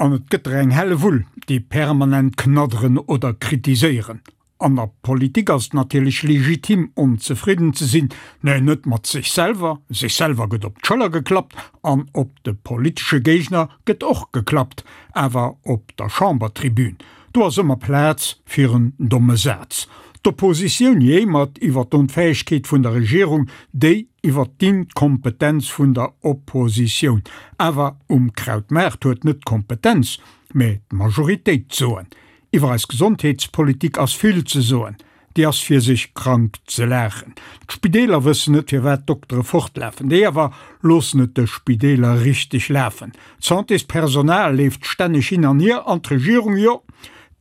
An et gëtt der eng Hellewull, déi permanent knadderen oder kritiséieren. An der Politik ass et natierlech legitim onzefridden ze sinn, mä net mat sech selwer, sech selwer gëtt op d'Schëller geklappt an op de politesche Géigner gëtt och geklappt, awer op der Chambertribün, do ass ëmmer Plaz fir en domme Saz. D'Oppositioun jéimert iwwer d'Onfäegkeet vun der Regierung, déi iwwer d'Inkompetenz vun der Oppositioun. Awer um Krautmaart huet net d'Kompetenz, mä d'Majoritéit d'Soen. Iwwer eis Gesondheetspolitik ass vill ze soen. Déi ass fir sech krank ze laachen. D'Spideeler wëssen net firwat d'Doktere fortlafen. Déi awer loossen et de Spideeler richteg lafen. D'Santéspersonal leeft stänneg hin an hier an d'Regierung, jo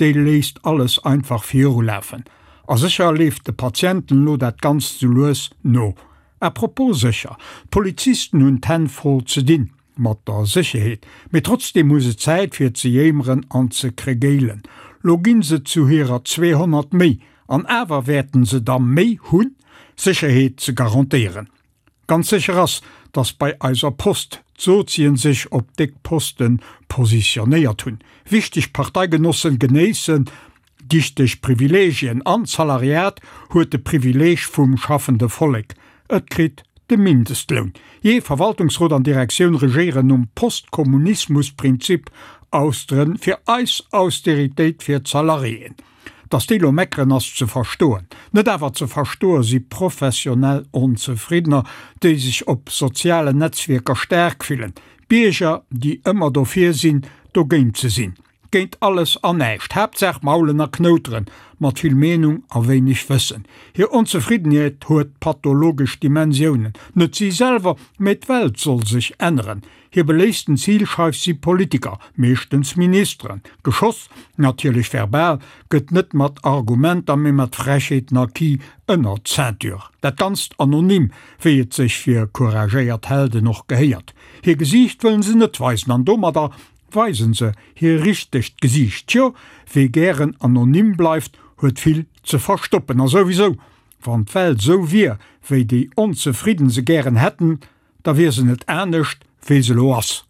déi léisst alles einfach virulafen. A sécher leeft de Patienten elo dat Ganzt sou lues no. À propos sécher, d'Polizisten hunn d'Hänn voll ze dinn. Mat der Sécherheet, mee trotzdeem hu se Zäit fir ze jéimeren an ze kregéilen. Lo ginn se zu hirer 200 méi, an awer wäerten se da méi hunn, Sécherheet ze garantéieren. Ganz sécher ass, datt bei eiser Post d'Sozien sech op déck Poste positionéiert hunn. Wichteg Parteigenossen genéissen Dichteg Privilegien an d'Salariat huet de Privileg vum schaffende Vollek, et kritt de Mindestloun. Jee, Verwaltungsrot an Direktioun regéieren nom Postkommunismus-Prinzip, Austeren fir eis, Austeritéit fir d'Salariéen. Datt déi lo meckeren ass ze verstoen. Net awer ze verstoe si professionell Onzefriddener, déi sech op sozialen Netzwierker staark fillen, Bierger, déi ëmmer dofir sinn, dogéint ze sinn. Géint alles an näischt, Haaptsaach maulen a knouteren, mat vill Meenung a wéineg Wëssen. Hir Onzefriddenheet huet pathologesch Dimensiounen. Net si selwer, mee d'Welt soll sech änneren. Hir beléifsten Zilscheif si Politiker, meeschtens Ministeren. Geschoss, natierlech verbal, gëtt net mat Argumenter, mee mat Frechheeten a Ki ënner d'Ceinture. Dat Ganzt anonym, wéi et sech fir couragéiert Helden och gehéiert. Hir Gesiicht wëllen se net weisen an domadder Weisen se hir richtegt Gesiicht? Tjo, wee gären anonym bleift, huet vill ze verstoppen. A souwisou, wann d'Welt sou wier, wéi déi Onzefridden se gären hätten, da wier se net anescht, wéi se lo ass.